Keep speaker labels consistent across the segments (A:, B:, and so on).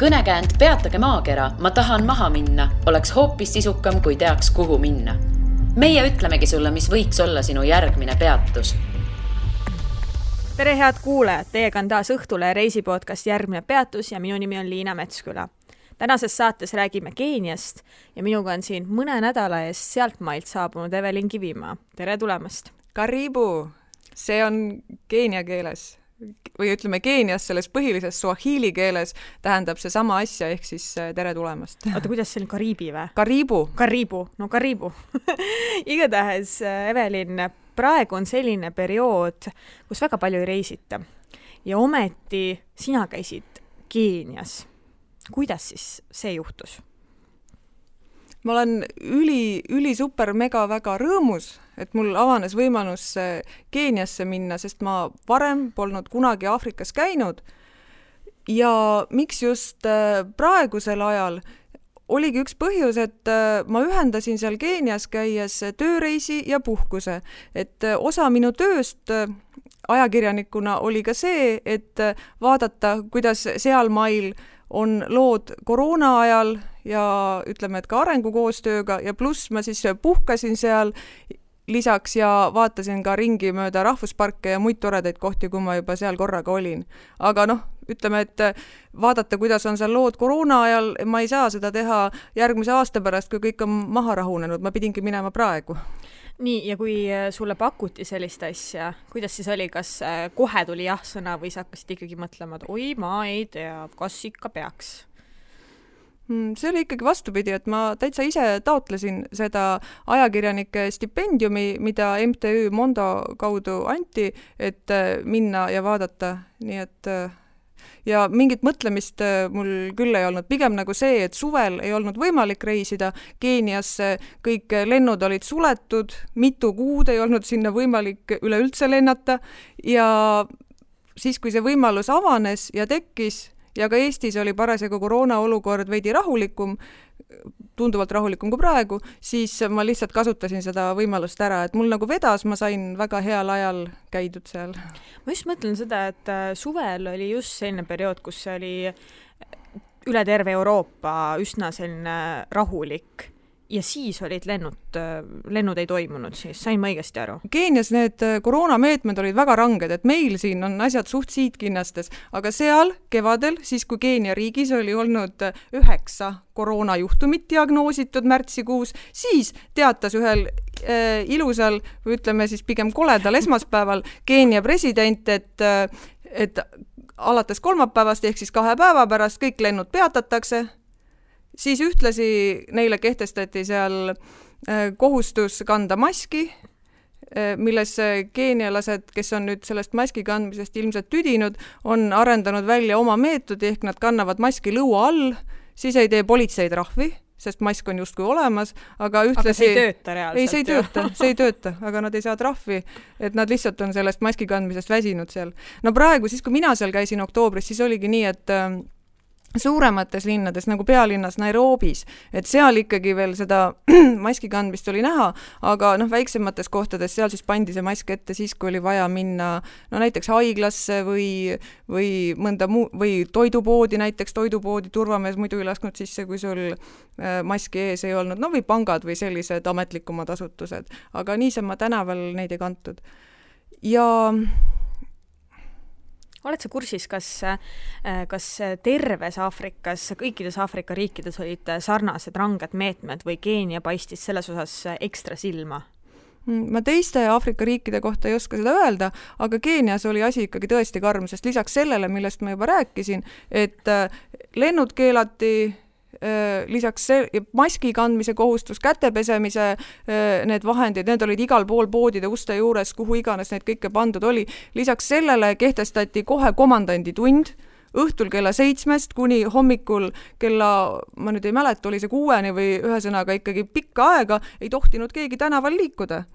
A: Kõnekäänd Peatage maakera, ma tahan maha minna, oleks hoopis sisukam, kui teaks, kuhu minna. Meie ütlemegi sulle, mis võiks olla sinu järgmine peatus.
B: Tere head kuulajad, teiega on taas Õhtule reisipodcast Järgmine peatus ja minu nimi on Liina Metsküla. Tänases saates räägime Keeniast ja minuga on siin mõne nädala eest sealtmailt saabunud Evelin Kivimaa. Tere tulemast!
C: Karibu! See on keenia keeles. Või ütleme Keenias selles põhilises suahili keeles tähendab see sama asja, ehk siis tere tulemast.
B: Oota, kuidas see on Kariibi või?
C: Karibu.
B: No Karibu. Igatahes, Evelin, praegu on selline periood, kus väga palju ei reisita. Ja ometi sina käisid Keenias. Kuidas siis see juhtus?
C: Ma olen üli super mega väga rõõmus, et mul avanes võimalus Keeniasse minna, sest ma varem polnud kunagi Aafrikas käinud. Ja miks just praegusel ajal oligi üks põhjus, et ma ühendasin seal Keenias käies tööreisi ja puhkuse. Et osa minu tööst ajakirjanikuna oli ka see, et vaadata, kuidas seal mail on lood koroona ajal ja ütleme, et ka arengukoostööga ja pluss ma siis puhkasin seal lisaks ja vaatasin ka ringi mööda rahvusparke ja muid toredaid kohti, kui ma juba seal korraga olin. Aga ütleme, et vaadata, kuidas on seal lood koroona ajal, ma ei saa seda teha järgmise aasta pärast, kui kõik on maha rahunenud, ma pidingi minema praegu.
B: Nii, ja kui sulle pakuti sellist asja, kuidas siis oli, kas kohe tuli jah-sõna või sa hakkasid ikkagi mõtlema, et oi, ma ei tea, kas ikka peaks?
C: See oli ikkagi vastupidi, et ma täitsa ise taotlesin seda ajakirjanike stipendiumi, mida MTÜ Mondo kaudu anti, et minna ja vaadata. Nii et ja mingit mõtlemist mul küll ei olnud. Pigem nagu see, et suvel ei olnud võimalik reisida. Keeniasse kõik lennud olid suletud, mitu kuud ei olnud sinna võimalik üleüldse lennata. Ja siis, kui see võimalus avanes ja tekkis, ja ka Eestis oli parasjagu koroona olukord veidi rahulikum, tunduvalt rahulikum kui praegu, siis ma lihtsalt kasutasin seda võimalust ära, et mul nagu vedas, ma sain väga heal ajal käidud seal.
B: Ma just mõtlen seda, et suvel oli just selline periood, kus oli üle terve Euroopa üsna selline rahulik ja siis olid lennud ei toimunud, siis sain ma õigesti aru.
C: Keenias need koroonameetmed olid väga ranged, et meil siin on asjad suht siitkinnastes, aga seal kevadel, siis kui Keenia riigis oli olnud 9 koroonajuhtumit diagnoositud märtsikuus, siis teatas ühel ilusal, või ütleme siis pigem koledal esmaspäeval Keenia president, et alates kolmapäevast ehk siis 2 päeva pärast kõik lennud peatatakse. Siis ühtlasi neile kehtestati seal kohustus kanda maski, milles keenialased, kes on nüüd sellest maski kandmisest ilmselt tüdinud, on arendanud välja oma meetodi, ehk nad kannavad maski lõua all, siis ei tee politseid trahvi, sest mask on justkui olemas, aga ühtlasi...
B: Aga see ei tööta reaalselt.
C: See ei tööta, aga nad ei saa trahvi, et nad lihtsalt on sellest maski kandmisest väsinud seal. No praegu, siis kui mina seal käisin oktoobris, siis oligi nii, et suuremates linnades, nagu pealinnas Nairobis, et seal ikkagi veel seda maski kandmist oli näha, aga väiksemates kohtades seal siis pandi see mask ette siis, kui oli vaja minna näiteks haiglasse või mõnda või toidupoodi, näiteks toidupoodi turvamees muidu ei lasknud sisse, kui sul maski ees ei olnud, või pangad või sellised ametlikumad asutused, aga niisama tänaval neid ei kantud. Ja
B: oled sa kursis, kas terves Aafrikas, kõikides Aafrika riikides olid sarnased ranged meetmed või Keenia paistis selles osas ekstra silma?
C: Ma teiste Aafrika riikide kohta ei oska seda öelda, aga Keenias oli asi ikkagi tõesti karm, sest lisaks sellele, millest ma juba rääkisin, et lennud keelati, lisaks maski kandmise kohustus, kätepesemise need vahendid, need olid igal pool poodide uste juures, kuhu iganes need kõike pandud oli. Lisaks sellele kehtestati kohe komandanditund õhtul kella 7 kuni hommikul kella, ma nüüd ei mäleta, oli see 6 või ühesõnaga ikkagi pikka aega, ei tohtinud keegi tänaval liikuda.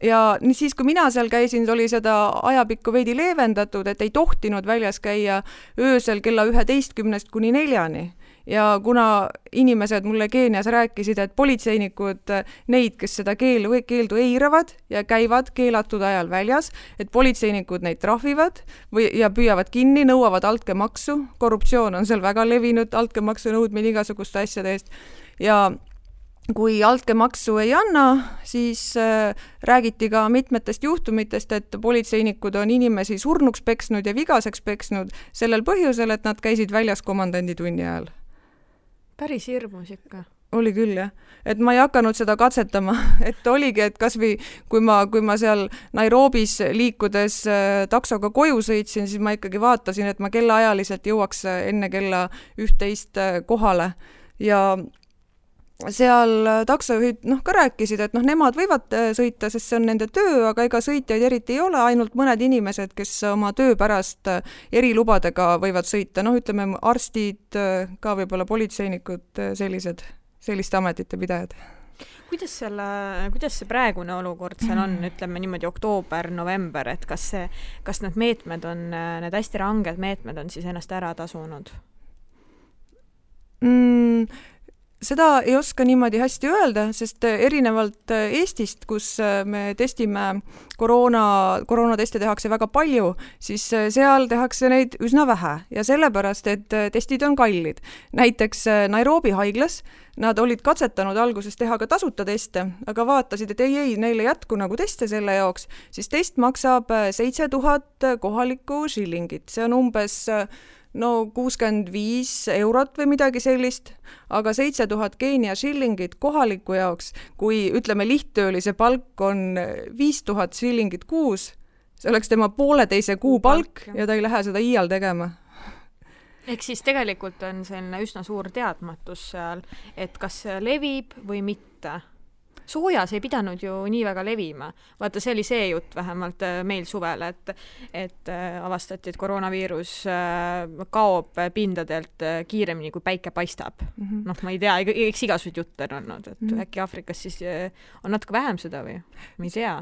C: Ja siis, kui mina seal käisin, oli seda ajapikku veidi leevendatud, et ei tohtinud väljas käia öösel kella 11 kuni 4. ja kuna inimesed mulle Keenias rääkisid, et politseinikud neid, kes seda keeldu eiravad ja käivad keelatud ajal väljas, et politseinikud neid trahvivad ja püüavad kinni, nõuavad altkäemaksu, korruptsioon on seal väga levinud, altkäemaksu nõudmine igasuguste asjade eest ja kui altkäemaksu ei anna, siis räägiti ka mitmetest juhtumitest, et politseinikud on inimesi surnuks peksnud ja vigaseks peksnud sellel põhjusel, et nad käisid väljas komandanditunni ajal.
B: Päris hirmus ikka.
C: Oli küll, jah. Et ma ei hakanud seda katsetama, et oligi, et kasvõi kui ma seal Nairobis liikudes taksoga koju sõitsin, siis ma ikkagi vaatasin, et ma kellaajaliselt jõuaks enne kella 11 kohale ja seal taksojuhid ka rääkisid, et nemad võivad sõita, sest see on nende töö, aga ega sõitjaid eriti ei ole, ainult mõned inimesed, kes oma töö pärast erilubadega võivad sõita, ütleme arstid, ka võib-olla politseinikud, selliste ametite pidajad.
B: Kuidas see praegune olukord seal on, ütleme niimoodi oktoober, november, et kas need meetmed on, need hästi ranged meetmed on siis ennast ära tasunud?
C: Seda ei oska niimoodi hästi öelda, sest erinevalt Eestist, kus me testime koroonateste tehakse väga palju, siis seal tehakse neid üsna vähe ja sellepärast, et testid on kallid. Näiteks Nairobi haiglas nad olid katsetanud alguses teha ka tasuta teste, aga vaatasid, et ei, neile jätku nagu teste selle jaoks, siis test maksab 7000 kohalikku shillingit. See on umbes 65 eurot või midagi sellist, aga 7000 Keenia shillingit kohaliku jaoks, kui ütleme lihttöölise palk on 5000 shillingit kuus, see oleks tema pooleteise kuu palk ja ta ei lähe seda iial tegema.
B: Ehk siis tegelikult on selline üsna suur teadmatus seal, et kas see levib või mitte. Soojas ei pidanud ju nii väga levima. Vaata, see oli see jutt vähemalt meil suvel, et avastati, et koroonaviirus kaob pindadelt kiiremini, kui päike paistab. Ma ei tea, eks igasugused jutt on olnud, et äkki Aafrikas siis on natuke vähem seda või? Ma ei tea.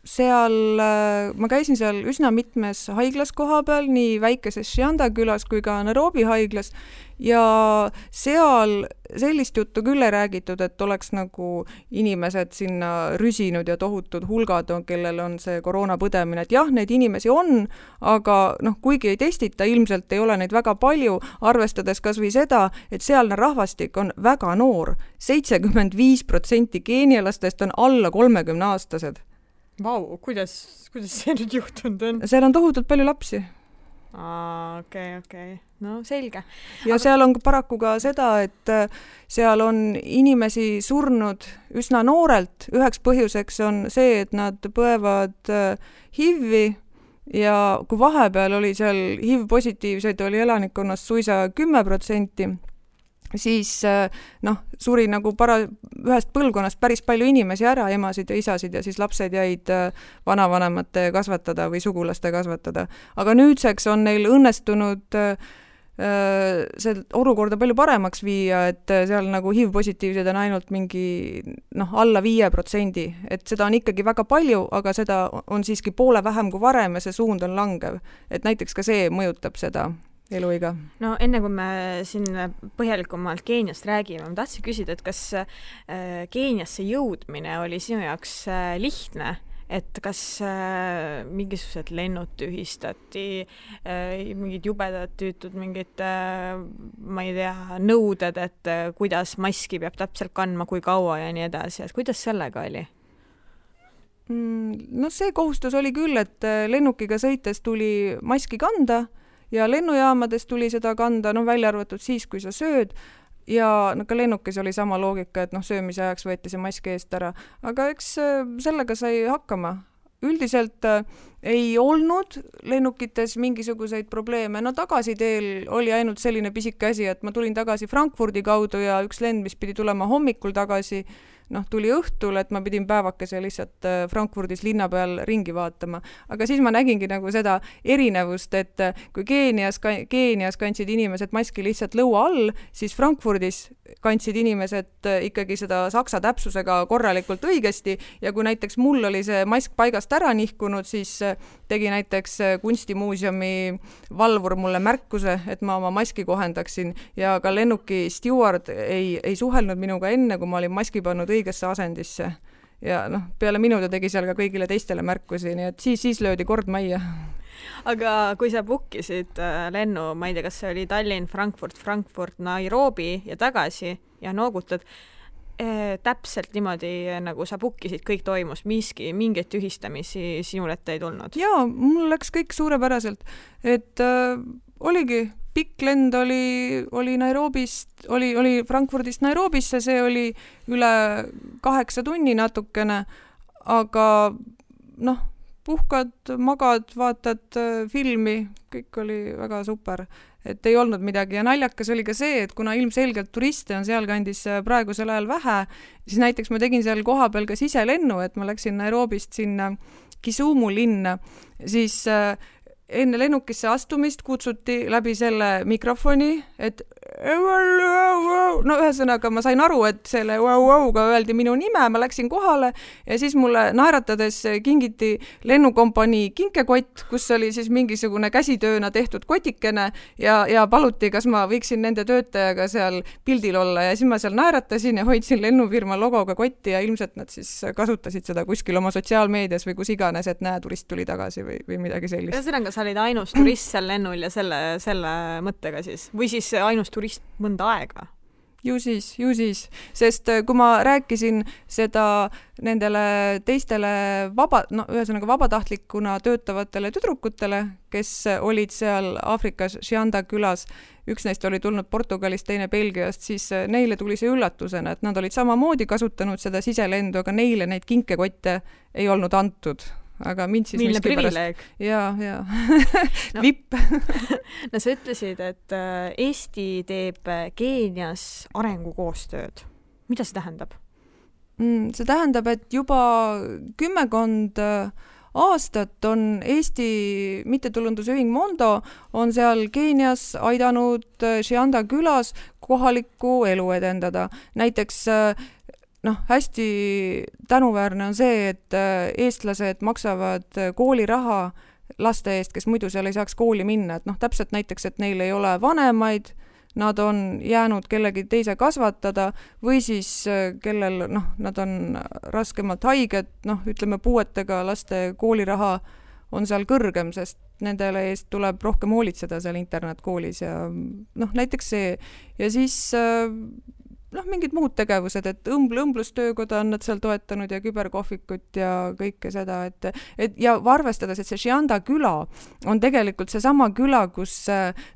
C: Ma käisin seal üsna mitmes haiglas koha peal, nii väikeses Shianda külas kui ka Nairobi haiglas ja seal sellist juttu küll ei räägitud, et oleks nagu inimesed sinna rüsinud ja tohutud hulgad, kellel on see koroonapõdemine, et jah, neid inimesi on, aga kuigi ei testita, ilmselt ei ole neid väga palju, arvestades kas või seda, et sealne rahvastik on väga noor, 75% keenialastest on alla 30-aastased.
B: Vau, kuidas see nüüd juhtunud on?
C: Seal on tohutult palju lapsi.
B: Okei. No selge.
C: Ja seal on paraku ka seda, et seal on inimesi surnud üsna noorelt. Üheks põhjuseks on see, et nad põevad HIV-i ja kui vahepeal oli seal HIV-positiivseid oli elanikkonnast suisa 10%, siis suri nagu ühest põlvkonnast päris palju inimesi ära, emasid ja isasid ja siis lapsed jäid vanavanemate kasvatada või sugulaste kasvatada. Aga nüüdseks on neil õnnestunud see olukorda palju paremaks viia, et seal nagu HIV-positiivsed on ainult mingi alla 5%, et seda on ikkagi väga palju, aga seda on siiski poole vähem kui varem ja see suund on langev. Et näiteks ka see mõjutab seda eluiga.
B: No enne kui me siin põhjalikumalt Keeniast räägime, ma tahtsin küsida, et kas Keeniasse jõudmine oli sinu jaoks lihtne, et kas mingisugused lennud tühistati, mingid jubedad tüütud, mingid, ma ei tea, nõuded, et kuidas maski peab täpselt kandma, kui kaua ja nii edasi, et kuidas sellega oli?
C: See kohustus oli küll, et lennukiga sõites tuli maski kanda ja lennujaamades tuli seda kanda, välja arvatud siis, kui sa sööd ja ka lennukis oli sama loogika, et söömise ajaks võeti see maski eest ära, aga eks sellega sai hakkama. Üldiselt ei olnud lennukites mingisuguseid probleeme, tagasiteel oli ainult selline pisike asi, et ma tulin tagasi Frankfurdi kaudu ja üks lend, mis pidi tulema hommikul tagasi, tuli õhtul, et ma pidin päevakese lihtsalt Frankfurdis linna peal ringi vaatama. Aga siis ma nägingi nagu seda erinevust, et kui Keenias kandsid inimesed maski lihtsalt lõua all, siis Frankfurdis kandsid inimesed ikkagi seda saksa täpsusega korralikult õigesti ja kui näiteks mul oli see mask paigast ära nihkunud, siis tegi näiteks kunstimuuseumi valvur mulle märkuse, et ma oma maski kohendaksin ja ka lennuki steward ei suhelnud minuga enne, kui ma olin maski pannud õigesse asendisse. Ja peale minu ta tegi seal ka kõigile teistele märkusi, nii et siis löödi kord majja.
B: Aga kui sa bookisid lennu, ma ei tea, kas see oli Tallinn, Frankfurt, Nairobi ja tagasi ja noogutad, täpselt niimoodi, nagu sa bookisid, kõik toimus, mingeid tühistamisi sinul ette ei tulnud?
C: Jaa, mul läks kõik suurepäraselt, et oligi pikk lend oli Nairobist, oli Frankfurdist Nairobisse, see oli üle 8 tunni natukene, aga puhkad, magad, vaatad filmi, kõik oli väga super, et ei olnud midagi ja naljakas oli ka see, et kuna ilmselgelt turiste on sealkandis praegusel ajal vähe, siis näiteks ma tegin seal kohapeal ka siselennu, et ma läksin Nairobist sinna Kisumu linna, siis enne lennukisse astumist kutsuti läbi selle mikrofoni, et ühesõnaga ma sain aru, et selle wow-wow-ga öeldi minu nime, ma läksin kohale ja siis mulle naeratades kingiti lennukompanii kinkekott, kus oli siis mingisugune käsitööna tehtud kotikene ja paluti, kas ma võiksin nende töötajaga seal pildil olla ja siis ma seal naeratasin ja hoidsin lennufirma logoga kotti ja ilmselt nad siis kasutasid seda kuskil oma sotsiaalmeedias või kus iganes, et näe, turist tuli tagasi või midagi sellist.
B: Ühesõnaga, sa olid ainus turist seal lennul ja selle mõttega siis? Või siis ainus turist mõnda aega?
C: Ju siis, sest kui ma rääkisin seda nendele teistele ühesõnaga vabatahtlikuna töötavatele tüdrukutele, kes olid seal Aafrikas Shianda külas, üks neist oli tulnud Portugalist, teine Belgiast, siis neile tuli see üllatusena, et nad olid samamoodi kasutanud seda siselendu, aga neile neid kinkekotte ei olnud antud. Aga mind siis
B: milline privileeg.
C: Jaa. Vipp.
B: No sa ütlesid, et Eesti teeb Keenias arengukoostööd. Mida see tähendab?
C: See tähendab, et juba 10 aastat on Eesti mittetulundusühing Mondo on seal Keenias aidanud Shianda külas kohalikku elu edendada. Näiteks hästi tänuväärne on see, et eestlased maksavad kooliraha laste eest, kes muidu seal ei saaks kooli minna. Et täpselt näiteks, et neil ei ole vanemaid, nad on jäänud kellegi teise kasvatada või siis kellel nad on raskemalt haiged, ütleme puuetega laste kooliraha on seal kõrgem, sest nendele eest tuleb rohkem hoolitseda seal internetkoolis ja näiteks see ja siis mingid muud tegevused, et õmblustöökoda on nad seal toetanud ja küberkohvikut ja kõike seda, et ja arvestades, et see Shianda küla on tegelikult seesama küla, kus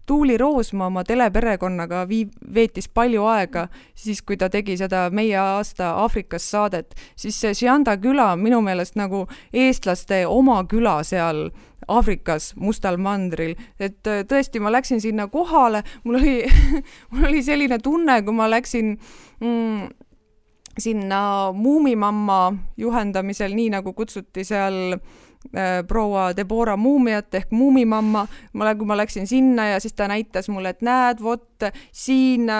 C: Tuuli Roosma oma teleperekonnaga veetis palju aega, siis kui ta tegi seda Meie aasta Aafrikas saadet, siis see Shianda küla minu meelest nagu eestlaste oma küla seal Aafrikas, Mustal mandril, et tõesti ma läksin sinna kohale, mul oli selline tunne, kui ma läksin sinna Muumimamma juhendamisel, nii nagu kutsuti seal proua Deborah Muumiat ehk Muumimamma, kui ma läksin sinna ja siis ta näitas mulle, et näed, siin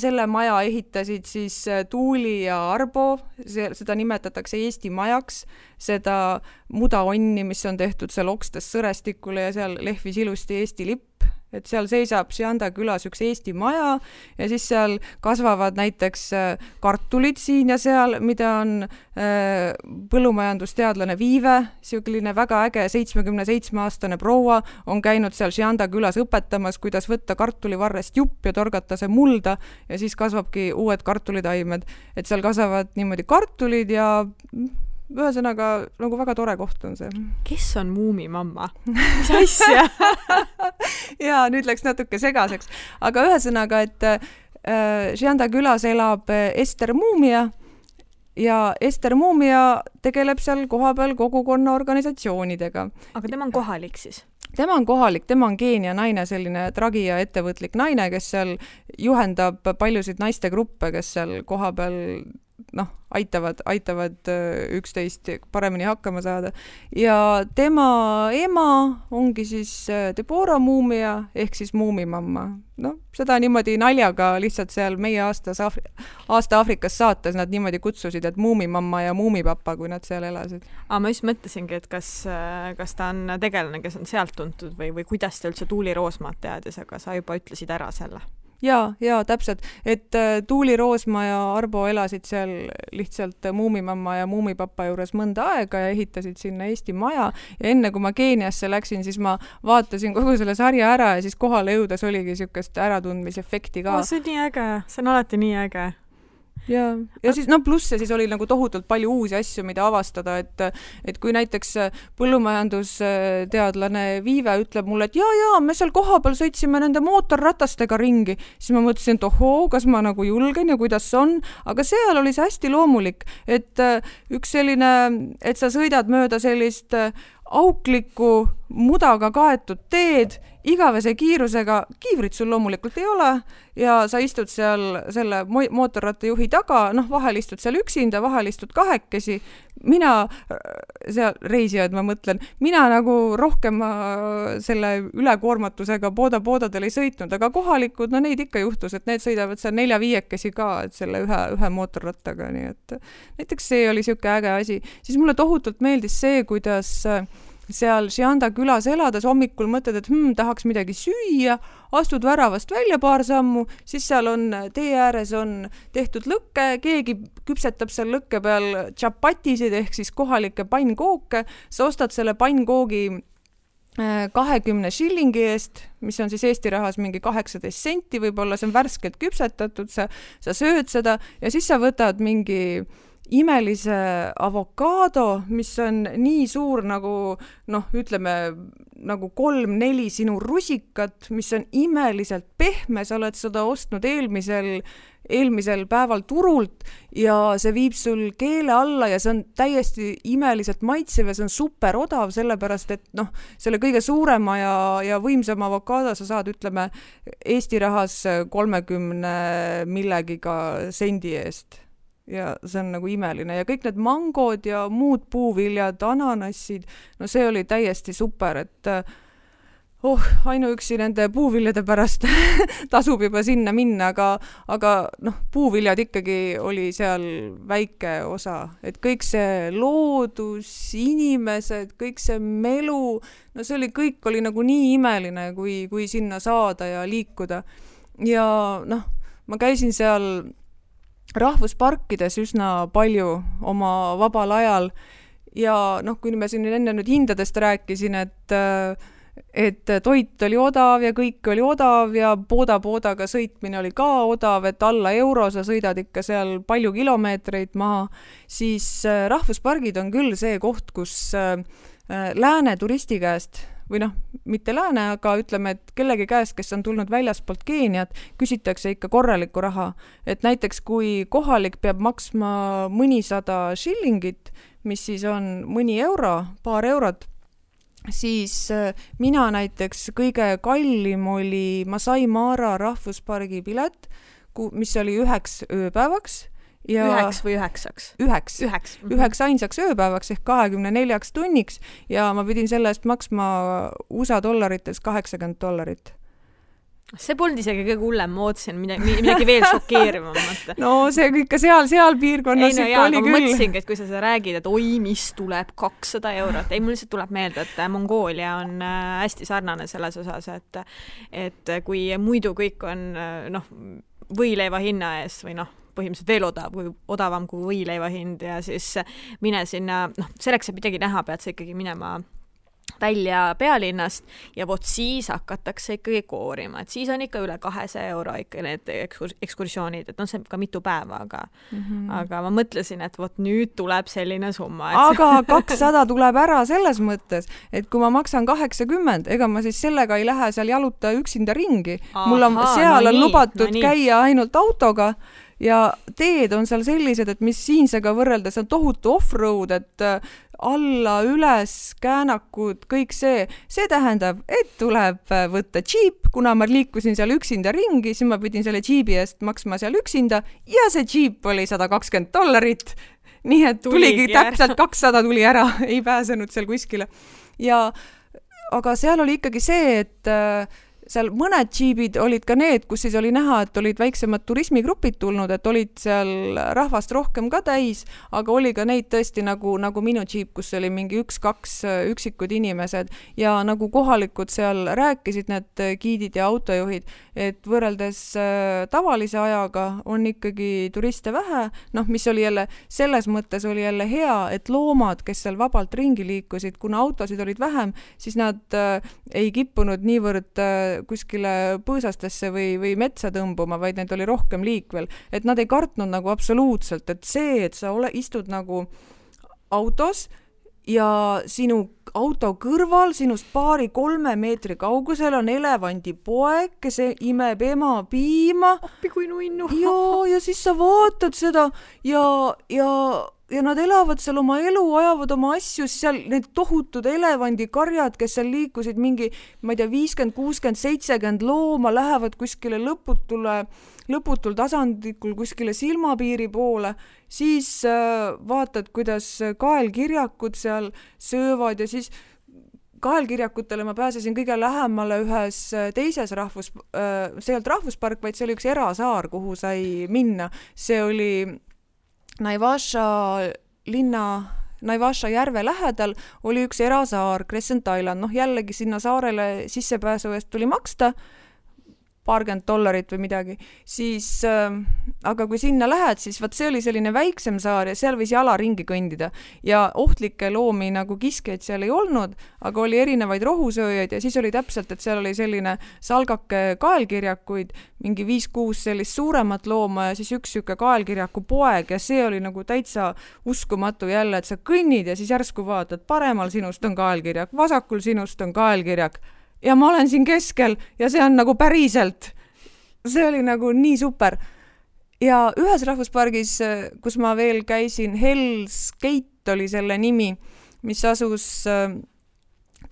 C: selle maja ehitasid siis Tuuli ja Arbo, seda nimetatakse Eesti majaks, seda mudaonni, mis on tehtud seal okstes sõrestikule ja seal lehvis ilusti Eesti lipp, et seal seisab Shianda külas üks Eesti maja ja siis seal kasvavad näiteks kartulid siin ja seal, mida on põllumajandusteadlane Viive, selline väga äge 77-aastane proua on käinud seal Shianda külas õpetamas, kuidas võtta kartulivarrest jupp ja torgata see mulda ja siis kasvabki uued kartulitaimed, et seal kasvavad niimoodi kartulid ja ühesõnaga nagu väga tore koht on see.
B: Kes on Muumimamma? Mis asja?
C: Jaa, nüüd läks natuke segaseks. Aga ühesõnaga, et Shianda külas elab Ester Muumia ja Ester Muumia tegeleb seal kohapeal kogukonna organisatsioonidega.
B: Aga tema on kohalik siis?
C: Tema on kohalik, tema on Keenia naine, selline tragi ja ettevõtlik naine, kes seal juhendab paljusid naistegruppe, kes seal kohapeal aitavad üksteist paremini hakkama saada. Ja tema ema ongi siis Deborah Muumia ehk siis Muumimamma. Seda niimoodi naljaga lihtsalt seal meie aasta Aafrikas saates nad niimoodi kutsusid, et Muumimamma ja Muumipapa, kui nad seal elasid.
B: Ma just mõtlesingi, et kas ta on tegelane, kes on sealt tuntud või kuidas ta üldse Tuuli Roosmaad teadis, aga sa juba ütlesid ära selle.
C: Ja, täpselt, et Tuuli Roosma ja Arbo elasid seal lihtsalt Muumimamma ja Muumipapa juures mõnda aega ja ehitasid sinna Eesti maja ja enne kui ma Keeniasse läksin, siis ma vaatasin kogu selle sarja ära ja siis kohale jõudes oligi niisugust äratundmisefekti ka.
B: See on nii äge, see on alati nii äge.
C: Ja siis pluss ja siis oli nagu tohutult palju uusi asju, mida avastada, et kui näiteks põllumajandusteadlane Viive ütleb mulle, et jaa, me seal kohapeal sõitsime nende mootorratastega ringi, siis ma mõtlesin, et ohoo, kas ma nagu julgen ja kuidas see on, aga seal oli see hästi loomulik, et üks selline, et sa sõidad mööda sellist auklikku mudaga kaetud teed, igavese kiirusega, kiivrit sul loomulikult ei ole ja sa istud seal selle mootorrattajuhi taga, vahel istud seal üksinda, vahel istud kahekesi. Mina, seal reisijad, ma mõtlen, mina nagu rohkem selle ülekoormatusega poodadel ei sõitnud, aga kohalikud, neid ikka juhtus, et need sõidavad seal 4-5 ka, et selle ühe mootorrattaga, nii et näiteks see oli siuke äge asi. Siis mulle tohutult meeldis see, kuidas seal Šianda külas elades hommikul mõtled, et tahaks midagi süüa, astud väravast välja paar sammu, siis seal on tee ääres on tehtud lõkke, keegi küpsetab seal lõkke peal tšapatisid ehk siis kohalikke pannkooke, sa ostad selle pannkoogi 20 shillingi eest, mis on siis Eesti rahas mingi 18 senti, võib-olla see on värskelt küpsetatud, sa sööd seda ja siis sa võtad mingi imelise avokaado, mis on nii suur nagu, ütleme, nagu 3-4 sinu rusikat, mis on imeliselt pehme, sa oled seda ostnud eelmisel päeval turult ja see viib sul keele alla ja see on täiesti imeliselt maitsev ja see on super odav, sellepärast et selle kõige suurema ja võimsama avokaado sa saad, ütleme, Eesti rahas 30 millegiga sendi eest. Ja see on nagu imeline ja kõik need mangod ja muud puuviljad, ananassid, see oli täiesti super, et ainuüksi nende puuviljade pärast tasub juba sinna minna, aga puuviljad ikkagi oli seal väike osa, et kõik see loodus, inimesed, kõik see melu, see kõik oli nagu nii imeline, kui sinna saada ja liikuda ja ma käisin seal rahvusparkides üsna palju oma vabal ajal ja kui me siin enne nüüd hindadest rääkisin, et toit oli odav ja kõik oli odav ja poodaga sõitmine oli ka odav, et alla euro sa sõidad ikka seal palju kilomeetreid maha, siis rahvuspargid on küll see koht, kus lääne turisti käest või mitte lääne, aga ütleme, et kellegi käest, kes on tulnud väljaspoolt Keeniat, küsitakse ikka korralikku raha. Et näiteks kui kohalik peab maksma mõnisada shillingit, mis siis on mõni euro, paar eurot, siis mina näiteks kõige kallim oli Masai Mara rahvuspargi pilet, mis oli 9 ööpäevaks. Ja
B: 9 või 9?
C: 9 ainsaks ööpäevaks ehk 24 tunniks ja ma pidin selle eest maksma USA dollarites $80.
B: See polnud isegi kõige hullem, ma ootasin midagi veel šokeerivamat.
C: See ikka seal piirkonnas ikka oli küll.
B: Ma mõtlesingi, et kui sa räägid, et mis tuleb 200 eurot. Mul lihtsalt tuleb meelde, et Mongoolia on hästi sarnane selles osas, et kui muidu kõik on võileiva hinna ees või põhimõtteliselt veel odavam kui võileiva hind ja siis mine sinna, selleks, et midagi näha, pead sa ikkagi minema välja pealinnast ja siis hakatakse ikkagi koorima, et siis on ikka üle 200 euro ikka need ekskursioonid, et see ka mitu päeva, aga ma mõtlesin, et nüüd tuleb selline summa.
C: Aga 200 tuleb ära selles mõttes, et kui ma maksan 80, ega ma siis sellega ei lähe seal jaluta üksinda ringi. Mul on seal lubatud käia ainult autoga ja teed on seal sellised, et mis siinsega võrreldes on tohutu off-road, et alla, üles, käänakud, kõik see tähendab, et tuleb võtta džiip, kuna ma liikusin seal üksinda ringi, siis ma pidin selle džiibi eest maksma seal üksinda ja see džiip oli $120. Nii et tuligi täpselt 200 tuli ära, ei pääsenud seal kuskile. Aga seal oli ikkagi see, et seal mõned džiibid olid ka need, kus siis oli näha, et olid väiksemad turismigrupid tulnud, et olid seal rahvast rohkem ka täis, aga oli ka neid tõesti nagu minu džiip, kus oli mingi 1-2 üksikud inimesed ja nagu kohalikud seal rääkisid need giidid ja autojuhid, et võrreldes tavalise ajaga on ikkagi turiste vähe, mis oli jälle, selles mõttes oli jälle hea, et loomad, kes seal vabalt ringi liikusid, kuna autosid olid vähem, siis nad ei kippunud niivõrd kuskile põõsastesse või metsa tõmbuma, vaid need oli rohkem liikvel. Et nad ei kartnud nagu absoluutselt, et see, et sa istud nagu autos ja sinu auto kõrval, sinust 2-3 meetri kaugusel on elevandipoeg, kes imeb ema piima.
B: Appi kui nuinnu.
C: Ja siis sa vaatad seda ja nad elavad seal oma elu, ajavad oma asju, seal need tohutud elevandikarjad, kes seal liikusid mingi, ma ei tea, 50, 60, 70 looma, lähevad kuskile lõputul tasandikul kuskile silmapiiri poole, siis vaatad, kuidas kaelkirjakud seal söövad ja siis kaelkirjakutele ma pääsesin kõige lähemale ühes teises see ei olnud rahvuspark, vaid see oli üks erasaar, kuhu sai minna. See oli Naivasha järve lähedal oli üks erasaar, Crescent Island. Jällegi sinna saarele sissepääsu eest tuli maksta $20 või midagi, siis aga kui sinna lähed, siis see oli selline väiksem saar ja seal võis jala ringi kõndida ja ohtlikke loomi nagu kiskjaid seal ei olnud, aga oli erinevaid rohusööjaid ja siis oli täpselt, et seal oli selline salgake kaelkirjakuid, mingi 5-6 sellist suuremat looma ja siis üks siuke kaelkirjaku poeg ja see oli nagu täitsa uskumatu jälle, et sa kõnnid ja siis järsku vaatad, paremal sinust on kaelkirjak, vasakul sinust on kaelkirjak ja ma olen siin keskel ja see on nagu päriselt. See oli nagu nii super. Ja ühes rahvuspargis, kus ma veel käisin, Hell's Gate oli selle nimi, mis asus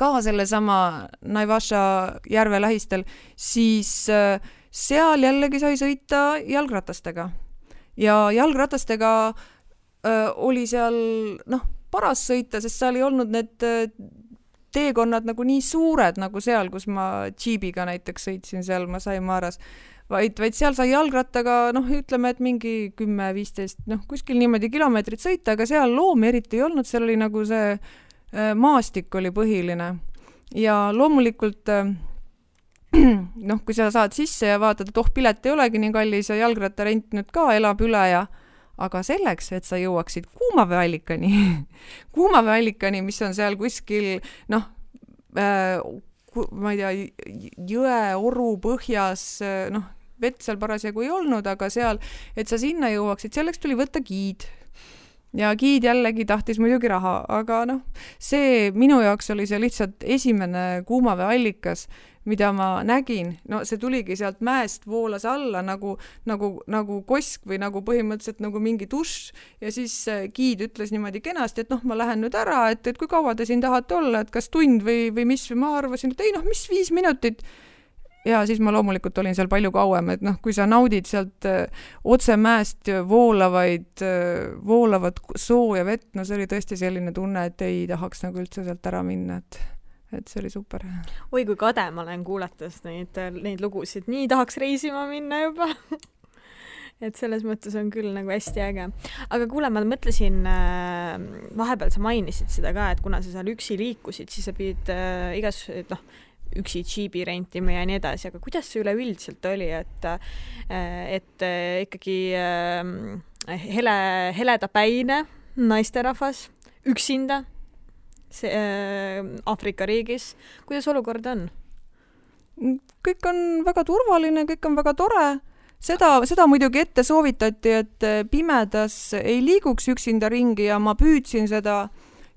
C: ka selle sama Naivasha järve lähistel, siis seal jällegi sai sõita jalgratastega. Ja jalgratastega oli seal paras sõita, sest seal ei olnud need teekonnad nagu nii suured nagu seal, kus ma džiibiga näiteks sõitsin seal Masai Maras, vaid seal sai jalgrattaga, ütleme, et mingi 10-15, kuskil niimoodi kilomeetrit sõita, aga seal loomi eriti ei olnud, seal oli nagu see maastik oli põhiline. Ja loomulikult, kui sa saad sisse ja vaatad, et pilet ei olegi nii kallis ja jalgrattarent nüüd ka elab üle aga selleks, et sa jõuaksid kuumaveeallikani, mis on seal kuskil, ma ei tea, jõe, oru põhjas, vett seal parasjagu ei olnud, aga seal, et sa sinna jõuaksid, selleks tuli võtta giid. Ja giid jällegi tahtis muidugi raha, aga see minu jaoks oli see lihtsalt esimene kuumaveeallikas, mida ma nägin, see tuligi sealt mäest voolas alla nagu kosk või nagu põhimõtteliselt nagu mingi dušš ja siis giid ütles niimoodi kenasti, et ma lähen nüüd ära, et kui kaua te siin tahate olla, et kas tund või mis, või ma arvasin, et ei mis 5 minutit. Ja siis ma loomulikult olin seal palju kauem, et kui sa naudid sealt otse mäest voolavat sooja vett, see oli tõesti selline tunne, et ei tahaks nagu üldse sealt ära minna, et see oli super.
B: Oi, kui kade ma olen kuulates neid lugusid. Nii tahaks reisima minna juba. Et selles mõttes on küll nagu hästi äge. Aga kuule, ma mõtlesin, vahepeal sa mainisid seda ka, et kuna sa seal üksi liikusid, siis sa pidid üksi džiibi rentima ja nii edasi, aga kuidas see üleüldiselt oli, et ikkagi heledapäine naisterahvas üksinda Aafrika riigis. Kuidas olukord on?
C: Kõik on väga turvaline, kõik on väga tore. Seda muidugi ette soovitati, et pimedas ei liiguks üksinda ringi ja ma püüdsin seda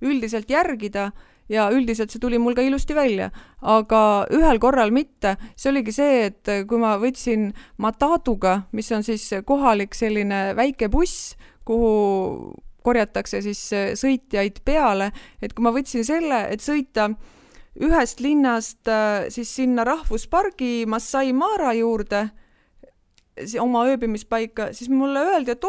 C: üldiselt järgida ja üldiselt see tuli mul ka ilusti välja, aga ühel korral mitte. See oligi see, et kui ma võtsin Matatuga, mis on siis kohalik selline väike buss, kuhu korjatakse siis sõitjaid peale, et kui ma võtsin selle, et sõita ühest linnast siis sinna rahvuspargi Masai Mara juurde, oma ööbimispaika, siis mulle öeldi, et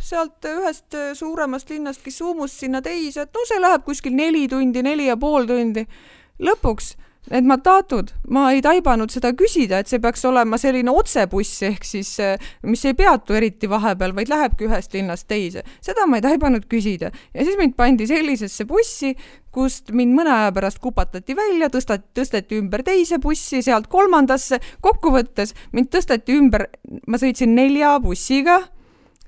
C: sealt ühest suuremast linnast Kisumust sinna teise, et see läheb kuskil 4 tundi, 4,5 tundi. Lõpuks need Matatud, ma ei taibanud seda küsida, et see peaks olema selline otsebuss, ehk siis, mis ei peatu eriti vahepeal, vaid lähebki ühest linnast teise. Seda ma ei taibanud küsida. Ja siis mind pandi sellisesse bussi, kust mind mõne aja pärast kupatati välja, tõsteti ümber teise bussi, sealt 3. Kokkuvõttes mind tõsteti ümber, ma sõitsin 4 bussiga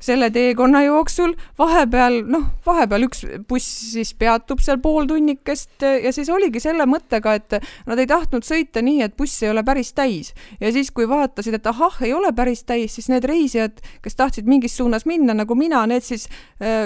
C: selle teekonna jooksul, vahepeal üks buss siis peatub seal pool tunnikest ja siis oligi selle mõttega, et nad ei tahtnud sõita nii, et buss ei ole päris täis. Ja siis, kui vaatasid, et ei ole päris täis, siis need reisijad, kes tahtsid mingis suunas minna, nagu mina, need siis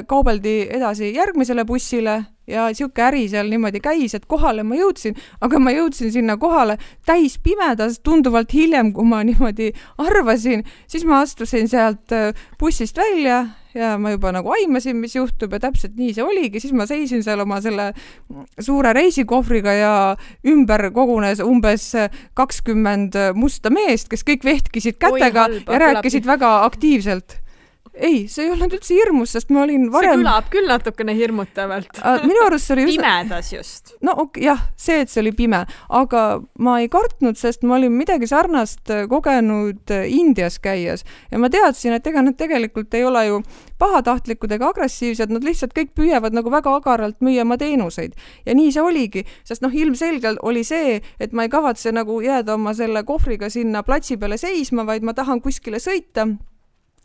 C: kaubeldi edasi järgmisele bussile ja siuke äri seal niimoodi käis, et kohale ma jõudsin, aga ma jõudsin sinna kohale täis pimedas tunduvalt hiljem, kui ma niimoodi arvasin, siis ma astusin sealt bussist välja ja ma juba nagu aimasin, mis juhtub ja täpselt nii see oligi, siis ma seisin seal oma selle suure reisikohvriga ja ümber kogunes umbes 20 musta meest, kes kõik vehtkisid kätega ja rääkisid väga aktiivselt. Ei, see ei olnud üldse hirmus, sest ma olin varem...
B: See kõlab küll natukene hirmutavalt.
C: Minu arust oli
B: pimedas just.
C: Jah, see, et see oli pime, aga ma ei kartnud, sest ma olin midagi sarnast kogenud Indias käies ja ma teadsin, et ega nad tegelikult ei ole ju pahatahtlikud ega agressiivsed, nad lihtsalt kõik püüavad nagu väga agaralt müüa oma teenuseid. Ja nii see oligi, sest ilmselgelt oli see, et ma ei kavatse nagu jääda oma selle kohvriga sinna platsi peale seisma, vaid ma tahan kuskile sõita.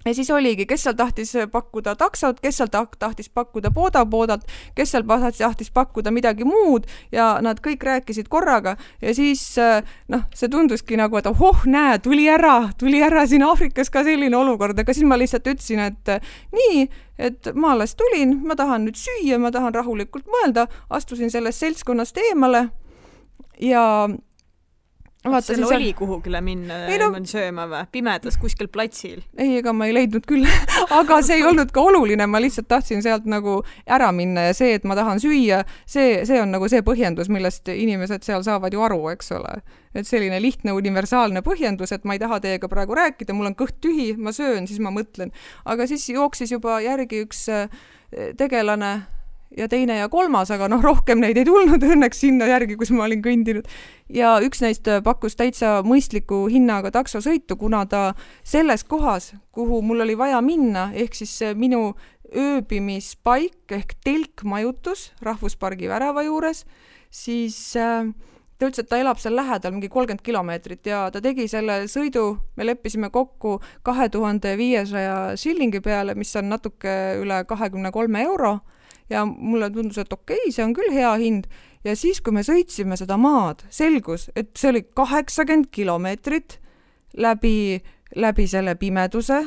C: Ja siis oligi, kes seal tahtis pakkuda taksot, kes seal tahtis pakkuda poodalt, kes seal tahtis pakkuda midagi muud ja nad kõik rääkisid korraga ja siis see tunduski nagu, et näe, tuli ära siin Aafrikas ka selline olukord, aga siis ma lihtsalt ütlesin, et nii, et ma alles tulin, ma tahan nüüd süüa, ma tahan rahulikult mõelda, astusin sellest seltskonnast eemale ja
B: Seal oli kuhugile minna sööma või? Pimedas kuskil platsil?
C: Ei, ega ma ei leidnud küll, aga see ei olnud ka oluline, ma lihtsalt tahtsin sealt nagu ära minna ja see, et ma tahan süüa, see on nagu see põhjendus, millest inimesed seal saavad ju aru, eks ole. Et selline lihtne universaalne põhjendus, et ma ei taha teiega praegu rääkida, mul on kõht tühi, ma söön, siis ma mõtlen. Aga siis jooksis juba järgi üks tegelane ja teine ja 3, aga rohkem neid ei tulnud õnneks sinna järgi, kus ma olin kõndinud. Ja üks neist pakkus täitsa mõistliku hinnaga taksosõitu, kuna ta selles kohas, kuhu mul oli vaja minna, ehk siis minu ööbimispaik ehk telkmajutus rahvuspargi värava juures, siis ta ütles, et ta elab seal lähedal mingi 30 kilomeetrit ja ta tegi selle sõidu, me leppisime kokku 2500 shillingi peale, mis on natuke üle 23 euro. Ja mulle tundus, et okei, see on küll hea hind. Ja siis, kui me sõitsime seda maad, selgus, et see oli 80 kilomeetrit läbi selle pimeduse,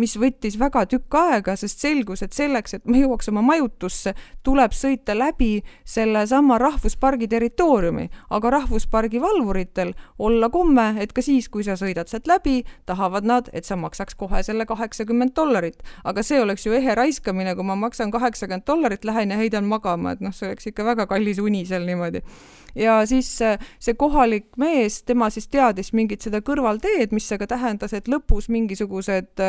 C: mis võttis väga tükk aega, sest selgus, et selleks, et ma jõuaks oma majutusse, tuleb sõita läbi selle sama rahvuspargi territooriumi, aga rahvuspargi valvuritel olla komme, et ka siis, kui sa sõidad sealt läbi, tahavad nad, et sa maksaks kohe selle $80. Aga see oleks ju ehe raiskamine, kui ma maksan $80, lähen ja heidan magama, et see oleks ikka väga kallis uni seal niimoodi. Ja siis see kohalik mees, tema siis teadis mingit seda kõrvalteed, mis aga tähendas, et lõpus mingisugused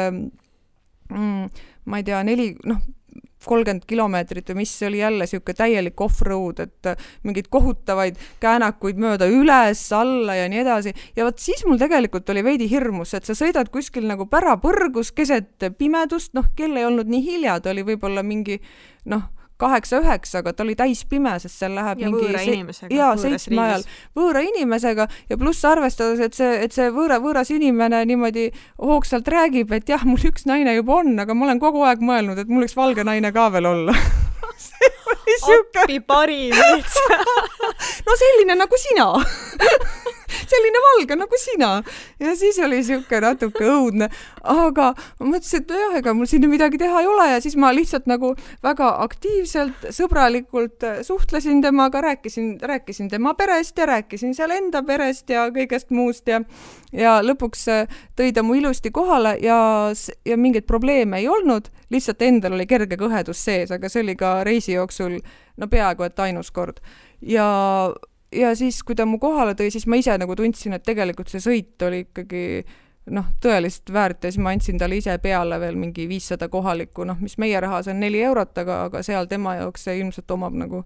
C: ma ei tea, 30 kilomeetrit või mis oli jälle siuke täielik off-road, et mingid kohutavaid käänakuid mööda üles, alla ja nii edasi. Ja võt siis mul tegelikult oli veidi hirmus, et sa sõidad kuskil nagu pärapõrgus keset pimedust, kell ei olnud nii hilja, ta oli võib-olla mingi 8-9, aga ta oli täis pime, sest seal läheb
B: ja
C: mingi...
B: võõra inimesega.
C: Ja 7 ajal võõra inimesega ja pluss arvestades, et see võõras inimene niimoodi hoogsalt räägib, et jah, mul üks naine juba on, aga ma olen kogu aeg mõelnud, et mul üks valge naine ka veel olla. See oli siuke...
B: Appi parim.
C: No selline nagu sina. selline valge nagu sina. Ja siis oli siuke natuke õudne, aga ma mõtlesin, et jah, ega mul siin midagi teha ei ole ja siis ma lihtsalt nagu väga aktiivselt, sõbralikult suhtlesin temaga, rääkisin tema perest ja rääkisin seal enda perest ja kõigest muust ja lõpuks tõi ta mu ilusti kohale ja mingeid probleeme ei olnud, lihtsalt endal oli kerge kõhedus sees, aga see oli ka reisi jooksul peaaegu et ainus kord. Ja siis, kui ta mu kohale tõi, siis ma ise nagu tundsin, et tegelikult see sõit oli ikkagi tõeliselt väärt ja siis ma andsin talle ise peale veel mingi 500 kohalikku, mis meie rahas on 4 eurot, aga seal tema jaoks see ilmselt omab nagu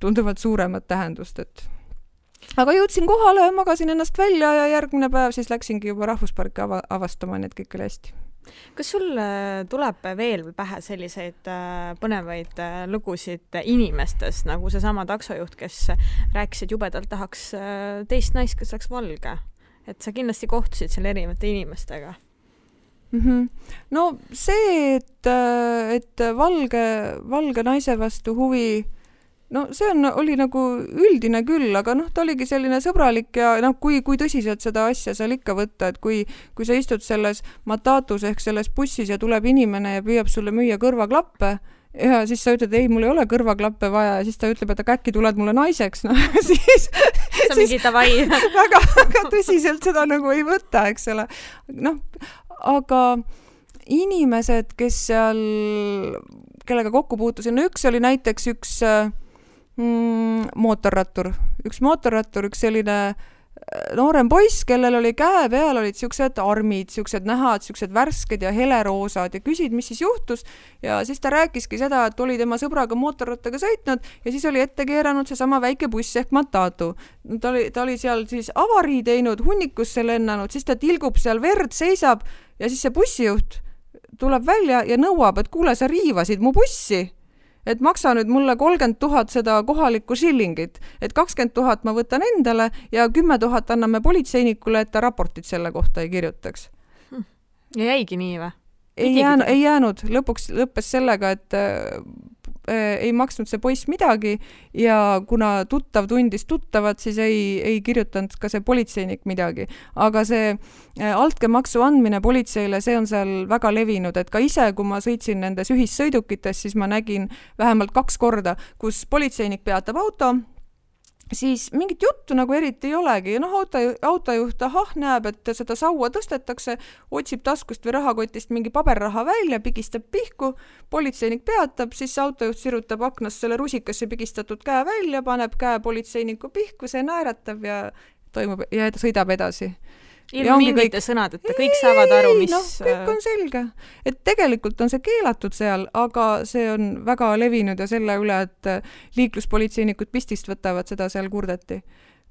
C: tunduvalt suuremat tähendust, et aga jõudsin kohale, magasin ennast välja ja järgmine päev siis läksingi juba rahvusparki avastama, nii et kõik oli hästi.
B: Kas sul tuleb veel pähe selliseid põnevaid lugusid inimestest, nagu seesama taksojuht, kes rääkis, et jubedalt tahaks teist naist, kes oleks valge? Et sa kindlasti kohtusid seal erinevate inimestega.
C: No see, et valge naise vastu huvi, see oli nagu üldine küll, aga ta oligi selline sõbralik ja kui tõsiselt seda asja seal ikka võtta, et kui sa istud selles Matatus ehk selles bussis ja tuleb inimene ja püüab sulle müüa kõrvaklappe ja siis sa ütled, ei, mul ei ole kõrvaklappe vaja ja siis ta ütleb, et aga äkki tuled mulle naiseks, siis
B: sa mingi tavai.
C: väga tõsiselt seda nagu ei võta, eks ole. Aga inimesed, kes seal, kellega kokku puutusin, üks oli näiteks üks mootorrattur, üks selline noorem poiss, kellel oli käe peal, olid siuksed armid, siuksed nähad, siuksed värsked ja heleroosad ja küsid, mis siis juhtus ja siis ta rääkiski seda, et oli tema sõbraga mootorrattaga sõitnud ja siis oli ette keeranud seesama väike buss ehk Matatu. Ta oli seal siis avarii teinud, hunnikusse lennanud, siis ta tilgub seal verd, seisab ja siis see bussijuht tuleb välja ja nõuab, et kuule, sa riivasid mu bussi. Et maksa nüüd mulle 30 000 seda kohalikku shillingit, et 20 000 ma võtan endale ja 10 000 anname politseinikule, et ta raportit selle kohta ei kirjutaks.
B: Ja jäigi nii või?
C: Ei jäänud. Lõpuks lõppes sellega, et ei maksnud see poiss midagi ja kuna tuttav tundis tuttavat, siis ei kirjutanud ka see politseinik midagi. Aga see altkäemaksu andmine politseile, see on seal väga levinud, et ka ise, kui ma sõitsin nendes ühissõidukites, siis ma nägin vähemalt 2 korda, kus politseinik peatab auto, siis mingit juttu nagu eriti ei olegi. Autojuht näeb, et seda saua tõstetakse, otsib taskust või rahakotist mingi paberraha välja, pigistab pihku, politseinik peatab, siis autojuht sirutab aknast selle rusikasse pigistatud käe välja, paneb käe politseiniku pihku, see naeratab ja sõidab edasi.
B: Ilma mingite sõnadeta, kõik saavad aru, mis...
C: kõik on selge. Et tegelikult on see keelatud seal, aga see on väga levinud ja selle üle, et liikluspolitseinikud pistist võtavad, seda seal kurdeti.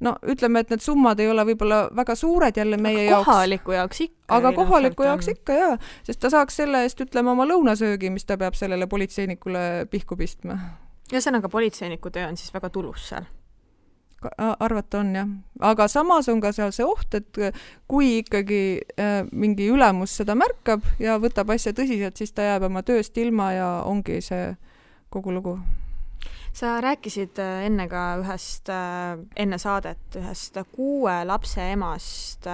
C: Ütleme, et need summad ei ole võib-olla väga suured jälle meie jaoks.
B: Kohaliku jaoks ikka.
C: Aga kohaliku jaoks ikka, jaa. Sest ta saaks selle eest, ütleme, oma lõunasöögi, mis ta peab sellele politseinikule pihku pistma.
B: Ja sõnaga politseiniku töö on siis väga tulus seal.
C: Arvata on, jah. Aga samas on ka seal see oht, et kui ikkagi mingi ülemus seda märkab ja võtab asja tõsiselt, siis ta jääb oma tööst ilma ja ongi see kogu lugu.
B: Sa rääkisid enne ka enne saadet ühest 6 lapse emast,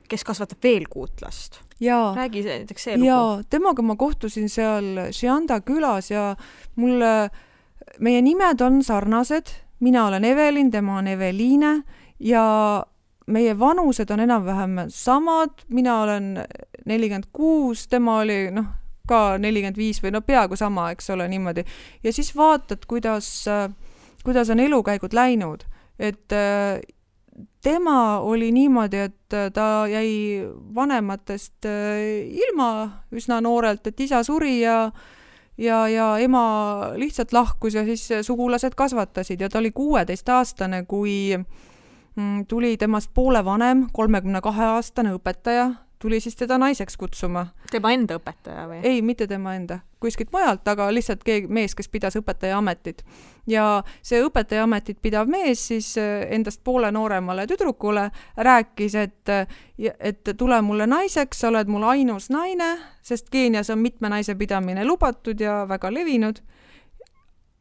B: kes kasvatab veel 6 last. Räägi näiteks see lugu.
C: Jaa, temaga ma kohtusin seal Šianda külas ja meie nimed on sarnased. Mina olen Evelin, tema on Eveliine ja meie vanused on enam-vähem samad. Mina olen 46, tema oli ka 45 või peaaegu sama, eks ole, niimoodi. Ja siis vaatad, kuidas on elukäigud läinud. Et tema oli niimoodi, et ta jäi vanematest ilma üsna noorelt, et isa suri ja ema lihtsalt lahkus ja siis sugulased kasvatasid ja ta oli 16-aastane, kui tuli temast poole vanem, 32-aastane õpetaja, tuli siis teda naiseks kutsuma.
B: Tema enda õpetaja või?
C: Ei, mitte tema enda. Kuskilt mujalt, aga lihtsalt mees, kes pidas õpetaja ametit. Ja see õpetaja ametit pidav mees siis endast poole nooremale tüdrukule rääkis, et tule mulle naiseks, sa oled mul ainus naine, sest Keenias on mitme naise pidamine lubatud ja väga levinud.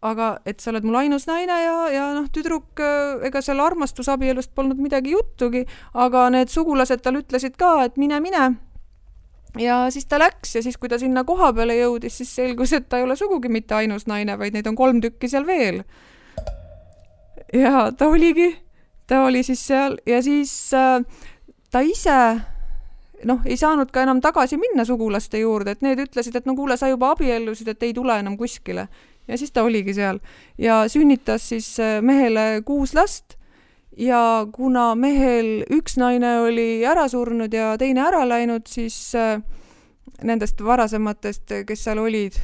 C: aga et sa oled mul ainus naine ja noh, tüdruk, ega seal armastusabielust polnud midagi juttugi, aga need sugulased tal ütlesid ka, et mine. Ja siis ta läks ja siis, kui ta sinna koha peale jõudis, siis selgus, et ta ei ole sugugi mitte ainus naine, vaid neid on 3 tükki seal veel. Ja ta oli siis seal ja siis ta ise ei saanud ka enam tagasi minna sugulaste juurde, et need ütlesid, et no kuule, sa juba abiellusid, et ei tule enam kuskile. Ja siis ta oligi seal ja sünnitas siis mehele 6 last ja kuna mehel 1 naine oli ära surnud ja teine ära läinud, siis nendest varasematest, kes seal olid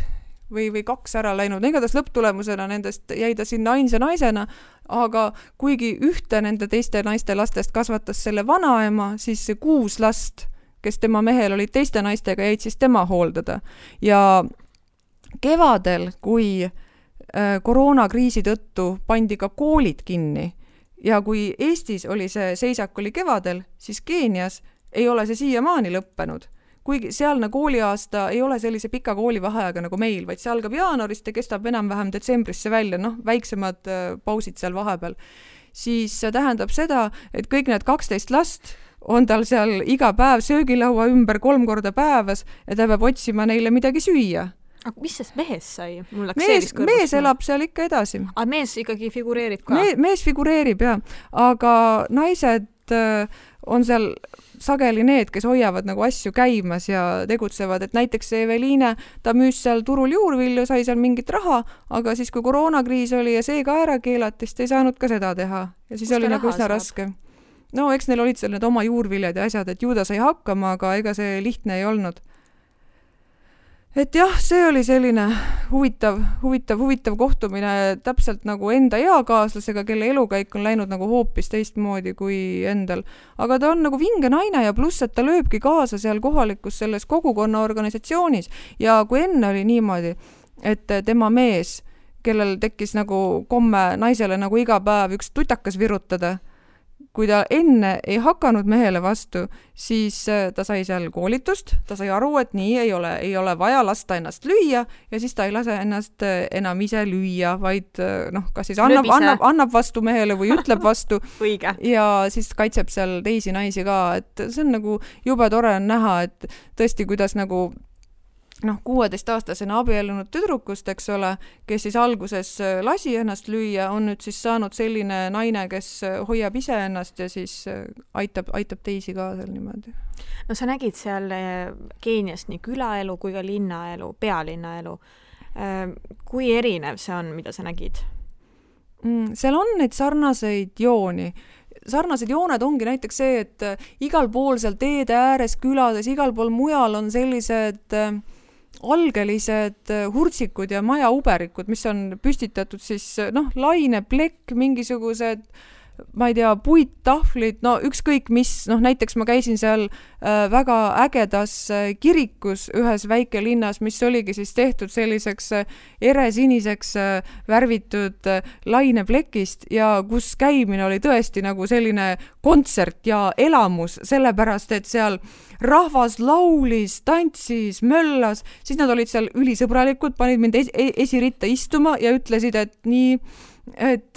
C: või 2 ära läinud, igatahes lõpptulemusena nendest jäi ta sinna ainsa naisena, aga kuigi ühte nende teiste naiste lastest kasvatas selle vanaema, siis see 6 last, kes tema mehel olid teiste naistega, jäid siis tema hooldada. Ja kevadel, kui koroonakriisi tõttu pandi ka koolid kinni ja kui Eestis oli see seisak oli kevadel, siis Keenias ei ole see siiamaani lõppenud. Kuigi sealne kooliaasta ei ole sellise pika koolivaheajaga nagu meil, vaid see algab jaanuarist ja kestab enam-vähem detsembrisse välja, väiksemad pausid seal vahepeal. Siis see tähendab seda, et kõik need 12 last on tal seal iga päev söögilaua ümber 3 korda päevas ja ta peab otsima neile midagi süüa.
B: Aga mis sest mehes sai?
C: Mees elab seal ikka edasi.
B: Aga mees ikkagi figureerib ka?
C: Mees figureerib, jah. Aga naised on seal sageli need, kes hoiavad nagu asju käimas ja tegutsevad, et näiteks Eveliine, ta müüs seal turul juurvilju, sai seal mingit raha, aga siis kui koroonakriis oli ja see ka ära keelati, siis ei saanud ka seda teha. Ja siis oli nagu üsna raske. No eks neil olid seal need oma juurviljad ja asjad, et ju ta sai hakkama, aga ega see lihtne ei olnud. Et jah, see oli selline huvitav kohtumine täpselt nagu enda eakaaslasega, kelle elukäik on läinud nagu hoopis teistmoodi kui endal. Aga ta on nagu vinge naine ja pluss, et ta lööbki kaasa seal kohalikus selles kogukonna organisatsioonis. Ja kui enne oli niimoodi, et tema mees, kellel tekkis nagu komme naisele nagu iga päev üks tutakas virutada, kui ta enne ei hakanud mehele vastu, siis ta sai seal koolitust, ta sai aru, et nii ei ole vaja lasta ennast lüüa ja siis ta ei lase ennast enam ise lüüa, vaid kas siis annab vastu mehele või ütleb vastu ja siis kaitseb seal teisi naisi ka, et see on nagu jube tore on näha, et tõesti, kuidas nagu 16-aastasena abiellunud tüdrukust, eks ole, kes siis alguses lasi ennast lüüa, on nüüd siis saanud selline naine, kes hoiab ise ennast ja siis aitab teisi ka seal niimoodi.
B: No sa nägid seal Keeniast nii külaelu kui ka linnaelu, pealinnaelu. Kui erinev see on, mida sa nägid?
C: Seal on neid sarnaseid jooni. Sarnased jooned ongi näiteks see, et igal pool seal teede ääres külades, igal pool mujal on sellised algelised hurtsikud ja majauberikud, mis on püstitatud siis laineplekk, mingisugused ma ei tea, puittahvlid, ükskõik mis, näiteks ma käisin seal väga ägedas kirikus ühes väikelinnas, mis oligi siis tehtud selliseks eresiniseks värvitud laineplekist ja kus käimine oli tõesti nagu selline kontsert ja elamus, sellepärast, et seal rahvas laulis, tantsis, möllas, siis nad olid seal ülisõbralikud, panid mind esiritta istuma ja ütlesid, et nii, et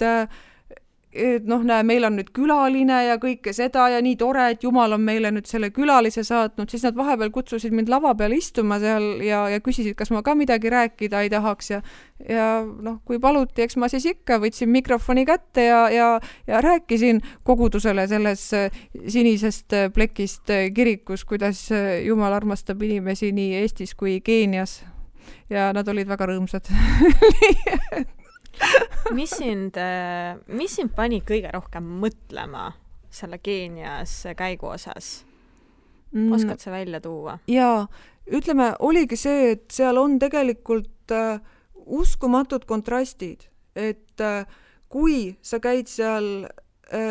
C: meil on nüüd külaline ja kõike seda ja nii tore, et Jumal on meile nüüd selle külalise saatnud, siis nad vahepeal kutsusid mind lava peale istuma seal ja küsisid, kas ma ka midagi rääkida ei tahaks ja kui paluti, eks ma siis ikka võtsin mikrofoni kätte ja rääkisin kogudusele selles sinisest plekist kirikus, kuidas Jumal armastab inimesi nii Eestis kui Keenias ja nad olid väga rõõmsad.
B: Mis sind pani kõige rohkem mõtlema selle Keenias käigu osas? Oskad sa välja tuua?
C: Jaa, ütleme, oligi see, et seal on tegelikult uskumatud kontrastid, et kui sa käid seal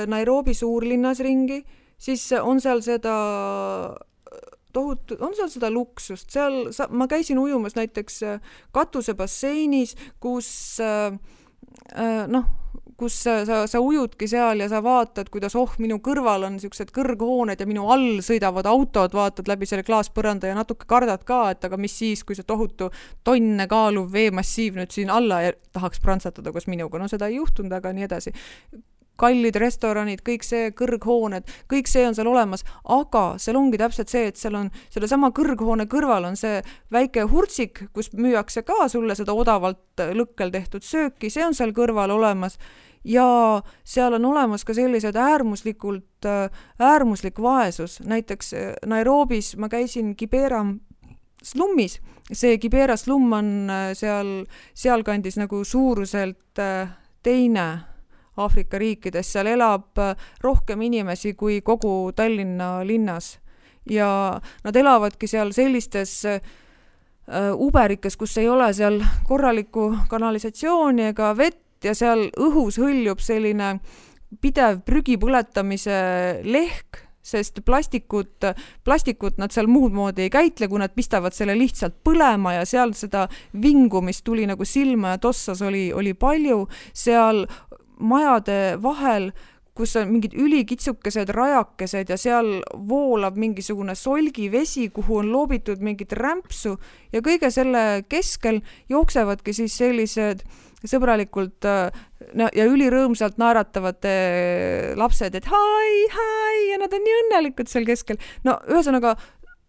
C: Nairobi suurlinnas ringi, siis on seal seda on seal seda luksust, ma käisin ujumas näiteks katusebasseinis, kus kus sa ujudki seal ja sa vaatad, kuidas minu kõrval on niisugused kõrghooned ja minu all sõidavad autod, vaatad läbi selle klaaspõranda ja natuke kardad ka, et aga mis siis, kui see tohutu tonne kaaluv veemassiiv nüüd siin alla tahaks prantsatada koos minuga. No seda ei juhtunud, aga nii edasi. Kallid restoranid, kõik see, kõrghooned, kõik see on seal olemas, aga seal ongi täpselt see, et seal on selle sama kõrghoone kõrval on see väike hurtsik, kus müüakse ka sulle seda odavalt lõkkel tehtud sööki, see on seal kõrval olemas ja seal on olemas ka sellised äärmuslik vaesus. Näiteks Nairobis ma käisin Kibera slummis, see Kibera slumm on sealkandis nagu suuruselt teine Aafrika riikides, seal elab rohkem inimesi kui kogu Tallinna linnas ja nad elavadki seal sellistes uberikes, kus ei ole seal korralikku kanalisatsiooni ega vett ja seal õhus hõljub selline pidev prügi põletamise lehk, sest plastikut nad seal muud moodi ei käitle, kui nad pistavad selle lihtsalt põlema ja seal seda vingu, mis tuli nagu silma ja tossas oli palju, seal majade vahel, kus on mingid ülikitsukesed rajakesed ja seal voolab mingisugune solgivesi, kuhu on loobitud mingit rämpsu ja kõige selle keskel jooksevadki siis sellised sõbralikult ja ülirõõmsalt naeratavad lapsed, et hai ja nad on nii õnnelikud seal keskel. No ühesõnaga,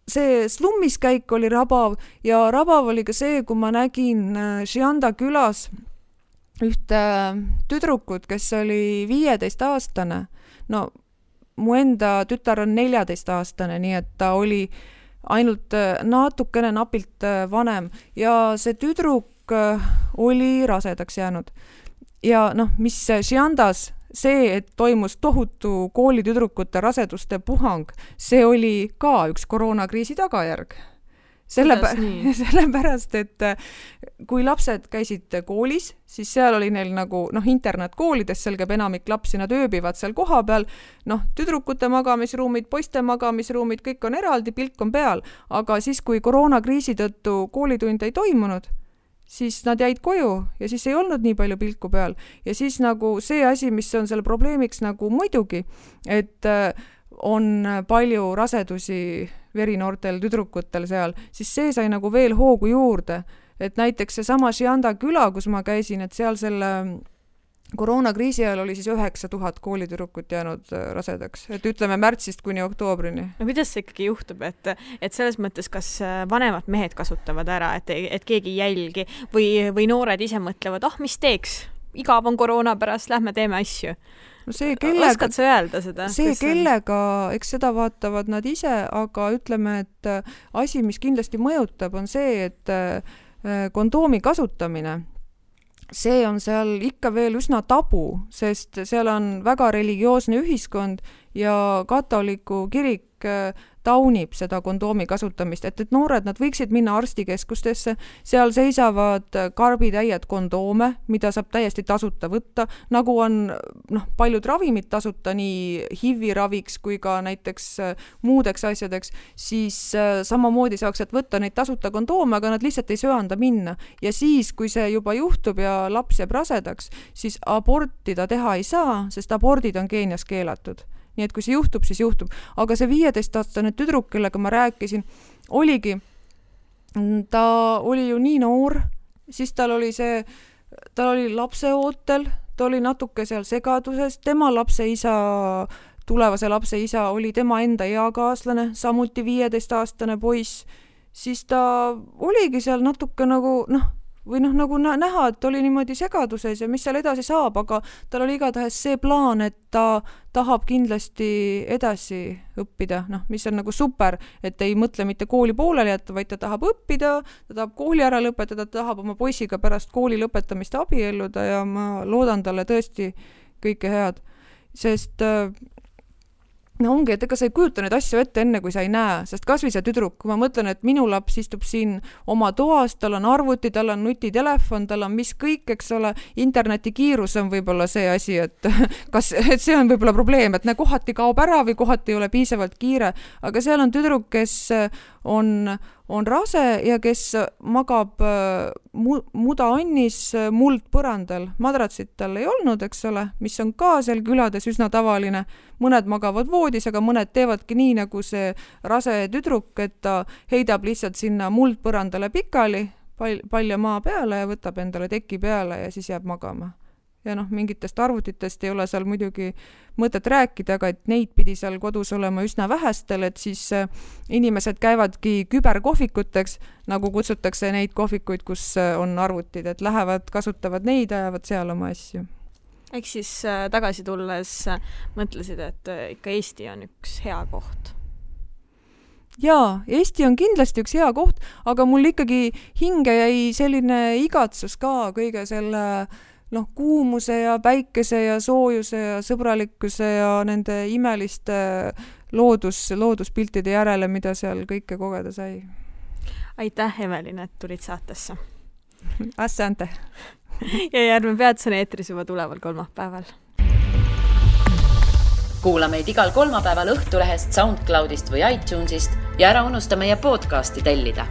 C: see slummis käik oli rabav ja rabav oli ka see, kui ma nägin Šianda külas ühte tüdrukut, kes oli 15-aastane. No, mu enda tütar on 14-aastane, nii et ta oli ainult natukene napilt vanem ja see tüdruk oli rasedaks jäänud. Ja mis Šiandas see, et toimus tohutu koolitüdrukute raseduste puhang, see oli ka üks koroonakriisi tagajärg. Sellepärast, et kui lapsed käisid koolis, siis seal oli neil nagu internetkoolides, seal käib enamik lapsi, nad ööbivad seal koha peal, tüdrukute magamisruumid, poiste magamisruumid, kõik on eraldi, pilk on peal, aga siis, kui koroonakriisi tõttu koolitund ei toimunud, siis nad jäid koju ja siis ei olnud nii palju pilku peal ja siis nagu see asi, mis on selle probleemiks nagu muidugi, et on palju rasedusi verinoortel tüdrukutel seal, siis see sai nagu veel hoogu juurde. Et näiteks see sama Šianda küla, kus ma käisin, et seal selle koroonakriisi ajal oli siis 9000 koolitüdrukut jäänud rasedaks. Et ütleme märtsist kuni oktoobrini.
B: No kuidas see ikkagi juhtub, et selles mõttes kas vanemad mehed kasutavad ära, et keegi jälgi või noored ise mõtlevad, mis teeks? Igav on koroona pärast, lähme teeme asju.
C: No
B: oskad sa öelda seda?
C: See kellega, eks seda vaatavad nad ise, aga ütleme, et asi, mis kindlasti mõjutab, on see, et kondoomi kasutamine, see on seal ikka veel üsna tabu, sest seal on väga religioosne ühiskond ja katoliku kirik taunib seda kondoomi kasutamist, et noored, nad võiksid minna arstikeskustesse, seal seisavad karbitäied kondoome, mida saab täiesti tasuta võtta, nagu on paljud ravimid tasuta nii HIV-i raviks kui ka näiteks muudeks asjadeks, siis samamoodi saaks võtta neid tasuta kondoome, aga nad lihtsalt ei söanda minna. Ja siis, kui see juba juhtub ja laps jääb rasedaks, siis abortida teha ei saa, sest abordid on Keenias keelatud. Nii et kui see juhtub, siis juhtub. Aga see 15-aastane tüdruk, kellega ma rääkisin, ta oli ju nii noor, siis tal oli lapseootel, ta oli natuke seal segaduses, tema tulevase lapse isa oli tema enda eakaaslane, samuti 15-aastane poiss, siis ta oligi seal natuke nagu, nagu näha, et oli niimoodi segaduses ja mis seal edasi saab, aga tal oli igatahes see plaan, et ta tahab kindlasti edasi õppida, mis on nagu super, et ei mõtle mitte kooli pooleli jätta, vaid ta tahab õppida, ta tahab kooli ära lõpetada, ta tahab oma poisiga pärast kooli lõpetamist abielluda ja ma loodan talle tõesti kõike head, sest ongi, et ega sa ei kujuta neid asju ette enne, kui sa ei näe, sest kasvõi see tüdruk, kui ma mõtlen, et minu laps istub siin oma toas, tal on arvuti, tal on nutitelefon, tal on mis kõik, eks ole, interneti kiirus on võib-olla see asi, et see on võib-olla probleem, et kohati kaob ära või kohati ei ole piisavalt kiire, aga seal on tüdruk, kes on rase ja kes magab mudaannis muldpõrandal. Madratsit tal ei olnud, eks ole, mis on ka seal külades üsna tavaline. Mõned magavad voodis, aga mõned teevadki nii, nagu see rase tüdruk, et ta heidab lihtsalt sinna muldpõrandale pikali, palja maa peale ja võtab endale teki peale ja siis jääb magama. Ja mingitest arvutitest ei ole seal muidugi mõtet rääkida, aga et neid pidi seal kodus olema üsna vähestel, et siis inimesed käivadki küberkohvikuteks, nagu kutsutakse neid kohvikuid, kus on arvutid, et lähevad, kasutavad neid, ajavad seal oma asju.
B: Ehk siis tagasi tulles mõtlesid, et ikka Eesti on üks hea koht.
C: Jaa, Eesti on kindlasti üks hea koht, aga mul ikkagi hinge jäi selline igatsus ka kõige selle kuumuse ja päikese ja soojuse ja sõbralikkuse ja nende imeliste looduspiltide järele, mida seal kõike kogeda sai.
B: Aitäh, Evelin, et tulid saatesse.
C: Asante.
B: Ja Järve peatus on eetris juba tuleval kolmapäeval.
A: Kuula meid igal kolmapäeval Õhtulehest, SoundCloudist või iTunesist ja ära unusta meie podcasti tellida.